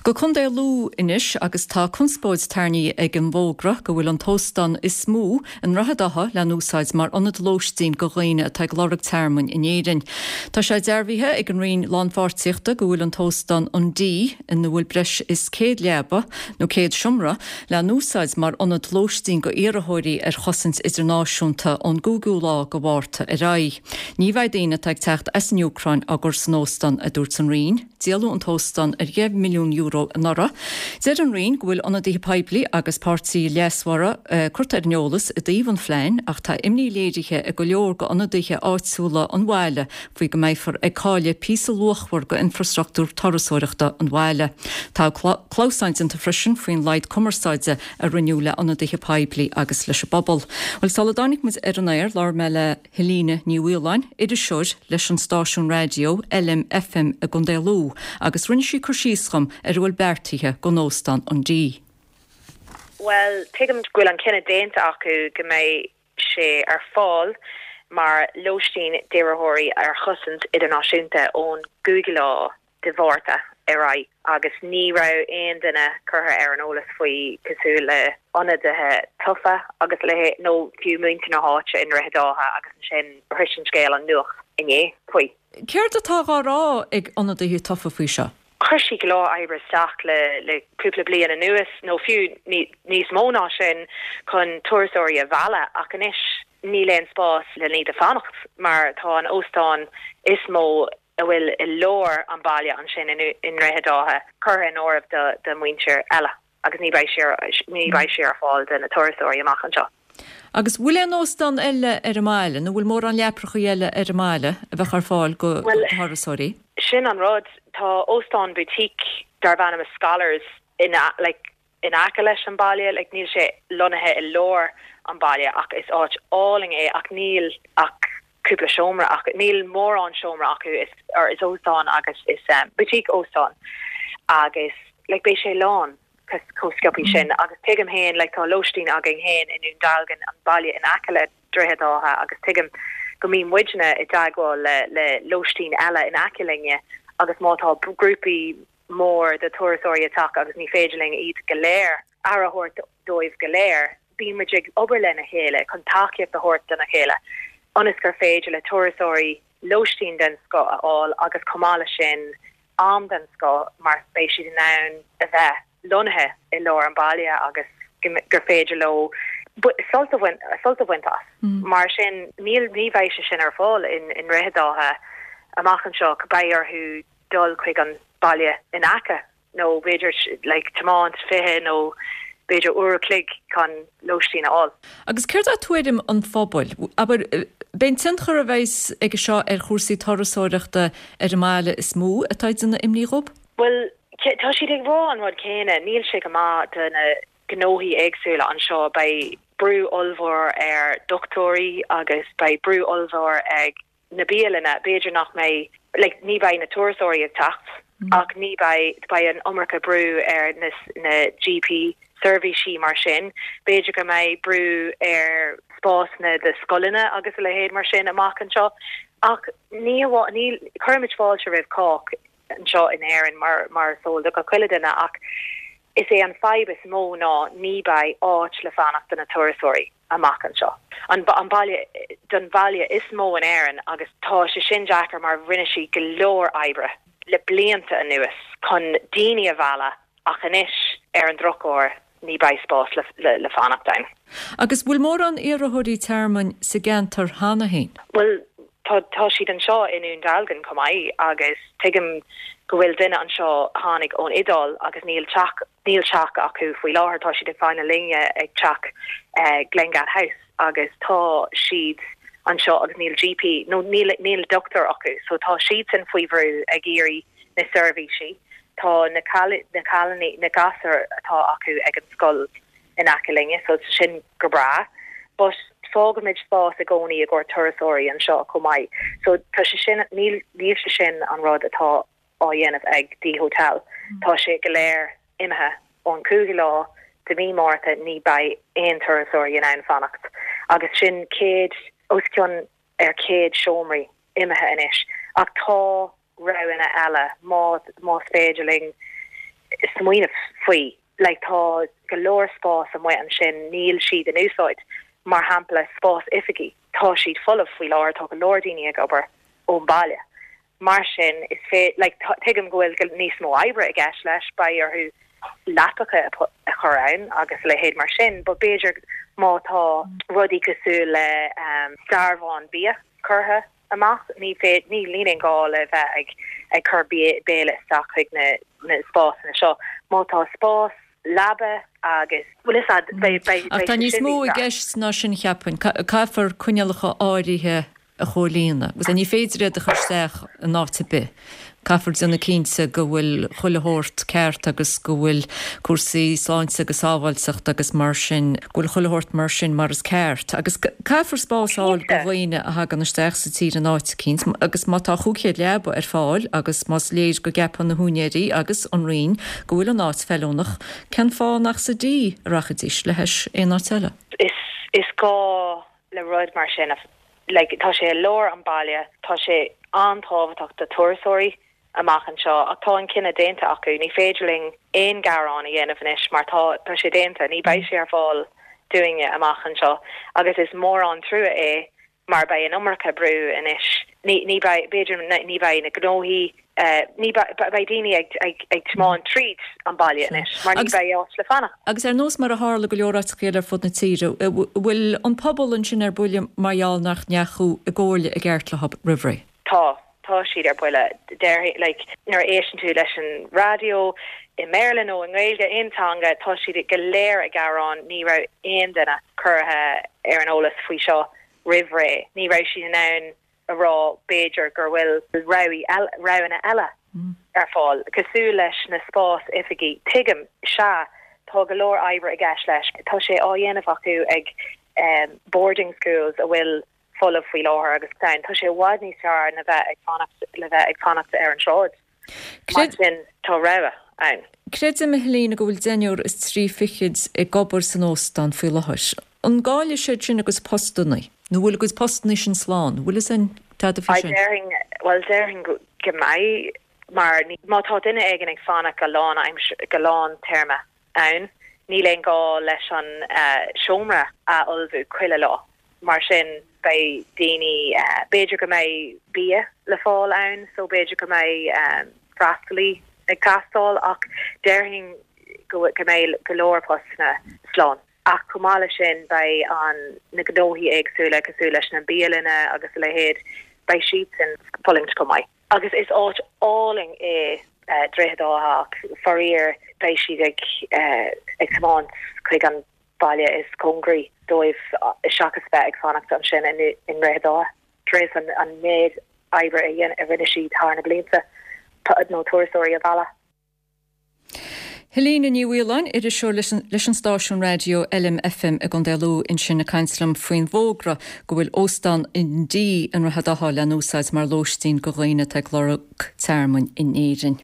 Go Contae Lú anois agus tá conspóid tarraingthe ag an bhfógra go bhfuil an t-óstán is mó i nDroichead Átha le n-úsáid mar ionad lóistín go dhaoine atá ag lorg tearmainn in Éirinn. Tá sé dearbhaithe ag an Roinn Lánpháirtíochta go bhfuil an t-óstán an Dee, ina bhfuil breis is 100 leaba nó 100 seomra, le n-úsáid mar ionad lóistín go iarrthóirí ar chosaint idirnáisiúnta ón gcúigiú lá go Mhárta ar aghaidh. Ní bheidh daoine atá ag teacht as an Úcráin á gcur san óstán, a dúirt an Roinn. Díoladh an t-óstán ar €10 milliún anuraidh. Deir an Roinn go bhfuil ionadaithe poiblí agus páirtithe leasmhara curtha ar an eolas i dtaobh an phlean ach tá imní léirithe ag go leor d'ionadaithe áitiúla an bhaile faoi go mbeifear ag cailleadh píosa luachmhar d'infrastruchtúr turasóireachta an bhaile. Tá clamhsán déanta freisin faoin laghad cumarsáide a rinneadh le ionadaithe poiblí agus leis an bpobal. Bhuel, sula dtáinig muid ar an aer, labhair mé le. Helena Ní Mhaoláin, iriseoir leis an stáisiún raidió LMFM i gContae Lú agus rinne sí cur síos dhom ar a bhfuil beartaithe don óstán an Dee. Bhuel, tuigim go bhfuil an cinneadh déanta acu go mbeidh sé ar fáil mar lóistín d'iarrthóirí ar chosaint idirnáisiúnta ón gcúigiú lá de Mhárta ar aghaidh agus ní raibh aon duine curtha ar an eolas faoi cosúil le ionadaithe tofa agus a leithéid nó fiú muintir na háite i nDroichead Átha agus ansin shrois an scéal an nuacht inné faoi. Céard atá dhá rá ag ionadaithe tofa faoi seo? Chuir siad go leor oibre isteach le le cúpla bliain anuas nó fiú níos mó ná sin chun turasóirí a mhealladh ach anois níl aon spás le iad a fanacht mar tá an óstán is mó a bhfuil i lár an bhaile ansin i nDroichead Átha curtha in áirithe do mhuintir eile agus ní beidh sé ní beidh sé ar fáil do na turasóirí amach anseo. Agus bhfuil aon óstán eile ar an mbaile nó bhfuil mórán leaprachaí eile ar an mbaile a bheadh ar fáil do thurasóirí? Sin an rud, tá óstán boutique darb ainm Scholars in like in aice leis an baile, like níl sé lonnaithe i lár an baile ach is áit álainn é ach níl ach cúpla seomra acu, níl mórán seomra acu, is or is óstán agus is boutique óstán agus like beidh sé lán chomh sciobthaí sin agus tuigim féin like tá lóistín againn féin i nDún Dealgan, an baile in aice le Droichead Átha agus tuigim go mbíonn muidne i dteagmháil le le lóistín eile in aice linne agus má tá grúpaí mór de turasóirí ag teacht agus ní féidir linn iad go léir, aire a thabhairt dóibh go léir. Bíonn muid ag obair lena chéile chun tacaíocht a thabhairt dona chéile ionas gur féidir le turasóirí lóistín den scoth a fháil agus chomh maith leis sin am den scoth mar beidh siad in ann a bheith lonnaithe i lár an bhaile agus gur féidir leo sult a bhaint as. Mar sin níl, ní bheidh sé sin ar fáil i nDroichead Átha amach anseo, beidh orthu dul chuig an baile in aice nó b'fhéidir like tiomáint 20 nó b'fhéidir uair a chloig chun lóistín a fháil. Agus céard é tuairim an phobail? Abair, b'é an tionchar a bheas aige seo ar chúrsaí turasóireachta ar an mbaile is mó atá ag déanamh imní dhób? Bhuel, tá siad ag rá an rud céanna, níl sé go maith do na gnóthaí éagsúla anseo, beidh brú ollmhór ar dochtúirí agus beidh brú ollmhór ag na bialanna, b'fhéidir nach mbeidh, like, ní bheidh na turasóirí ag teacht ach ní bheidh, beidh an iomarca brú ar na, na GP seirbhísí mar sin, b'fhéidir go mbeidh brú ar spásanna do scoileanna agus a leithéid mar sin amach anseo ach ní hamháin, ní, cuirimid fáilte roimh chách anseo in Éirinn mar, mar is eol do gach uile duine ach is é an fadhb is mó ná ní beidh áit le fanacht do na turasóirí. amach anseo. An baile don bhaile is mó in Éirinn agus tá sé sin deacair mar rinne siad go leor oibre le blianta anuas chun daoine a mhealladh ach anois ar an drochuair ní beidh spás le fanacht ann. Agus bhfuil mórán iarrthóirí tearmainn sa gceantar cheana féin? Bhuel tá tá siad anseo i nDún Dealgan chomh maith agus tuigim go bhfuil duine anseo a tháinig ón Iodáil agus níl teach Níl teach acu faoi láthair, tá siad ag fanacht linne ag teach Glengad House agus tá siad anseo agus níl GP nó níl níl dochtúir acu so tá siadsan faoi bhrú ag iarraidh na seirbhísí. Tá na na cailíní, na gasúir atá acu ag an scoil in aice linne so tá sin go breá but fágaimid spás i gcónaí i gcomhair turasóirí anseo chomh maith so tá sé sin níl níl sé sin an rud atá á dhéanamh ag Dee Hotel. Tá sé go léir imithe ón 5ú lá de mhí Márta ní beidh aon turasóirí in ann fanacht agus sin 100, os cionn ar 100 seomraí imithe anois ach tá roghanna eile má más féidir linn. smaoineamh faoi. Like tá go leor spás amuigh ansin, níl siad in úsáid. Mar shampla, spás oifigí, tá siad folamh faoi láthair, tá go leor daoine ag obair ón baile. Mar sin, is fé, like, tuigim go bhfuil níos mó oibre i gceist leis, beidh orthu leapacha a chur ann agus a leithéid mar sin, but b'fhéidir má tá rudaí cosúil le dearbhán bia curtha amach, ní féidir, ní, níl aon gá le bheith ag, ag cur béile isteach chuig na, na spásanna seo. Má tá spás leaba agus, bhfuil fhios a'd, beidh, beidh, Ach beidh tá sé níos sin mó níos i fearr. gceist ná sin, cheapfainn. Caithfear coinníollacha áirithe a chomhlíonadh. Agus ní féidir iad a chur isteach in áit ar bith. Caithfear déanamh cinnte go bhfuil chuile shórt ceart agus go bhfuil cúrsaí sláinte agus sábháilteachta agus mar sin, go bhfuil chuile shórt mar sin mar is ceart. Agus caithfear spás a fháil do dhaoine a thagann isteach sa tír in áit eicínt agus má tá 500 leaba ar fáil agus más léir go gceapann na húinéirí agus an Roinn go bhfuil an áit feiliúnach, cén fáth nach sa D a rachaidís le hais aon áit eile? Is gá le rud mar sin, like, tá sé i lár an baile, tá sé an-tábhachtach do turasóirí amach anseo ach tá an cinneadh déanta acu, ní féidir linn aon ghearán a dhéanamh anois mar tá, tá sé déanta, ní beidh sé ar fáil dúinne amach anseo agus is mór an trua é mar beidh an iomarca brú anois, ní, ní beidh, b'fhéidir ní beidh na gnóthaí Ní beidh daoine ag tiomáint tríd an baile anois mar ní beidh áit le fanacht. Agus ar nós mar a tharla go leor áiteacha eile ar fud na tíre, bhfuil an pobal ansin ar buile mar gheall nach ndeachaigh i gcomhairle i gceart leo roimh ré? Tá. Tá siad ar buile. Déarfainn, like, nuair a éisteann tú leis an raidió, i mBéarla nó i nGaeilge, aon teanga, tá siad go léir ag gearán, ní raibh aon duine curtha ar an eolas faoi seo roimh ré. Ní raibh siad in ann a rá b'fhéidir gur bhfuil roghanna eile ar fáil, cosúil leis na spás oifigí. Tuigim, sea, tá go leor oibre i gceist leis. Tá sé á dhéanamh acu ag boarding schools a bhfuil folamh faoi láthair agus tá sé i bhfad níos fearr na bheith ag fanacht le bheith ag fanacht ar an tsráid. Mar sin, tá rogha ann. Creidim, a Helena, go bhfuil deichniúr is trí fichid ag obair san óstán faoi láthair. An gcaillfidh siad sin a gcuid postanna? Nó bhfuil a gcuid postanna sin slán? Bhfuil fhios a'inn tada faoi sin? Déarfainn, bhuel, déarfainn go mbeidh, mar má tá duine éigin ag fanacht go lán go lán téarma ann, níl aon gá leis an seomra a fholmhú chuile lá. Mar sin, beidh daoine, b'fhéidir go mbeidh bia le fáil ann so b'fhéidir go mbeidh freastalaí ag teastáil ach déarfainn go mbeidh go leor postanna slán. Ach chomh maith leis sin, beidh an, na gnóthaí éagsúla cosúil leis na bialanna agus a leithéid, beidh siadsan ag fulaingt chomh maith. Agus is áit álainn é Droichead Átha ach faraor beidh siad ag ag tiomáint chuig an baile is cóngaraí dóibh seachas bheith ag fanacht ansin i nDroichead Átha tar éis an méid oibre a rinne siad thar na blianta nó turasóirí a mhealladh. Helena Ní Mhaoláin, iriseoir leis an stáisiún raidió LMFM i gContae Lú ansin ag caint liom faoin bhfógra go bhfuil Óstán an D i nDroichead Átha le n-úsáid mar lóistín go dhaoine atá ag lorg tearmainn in Éirinn.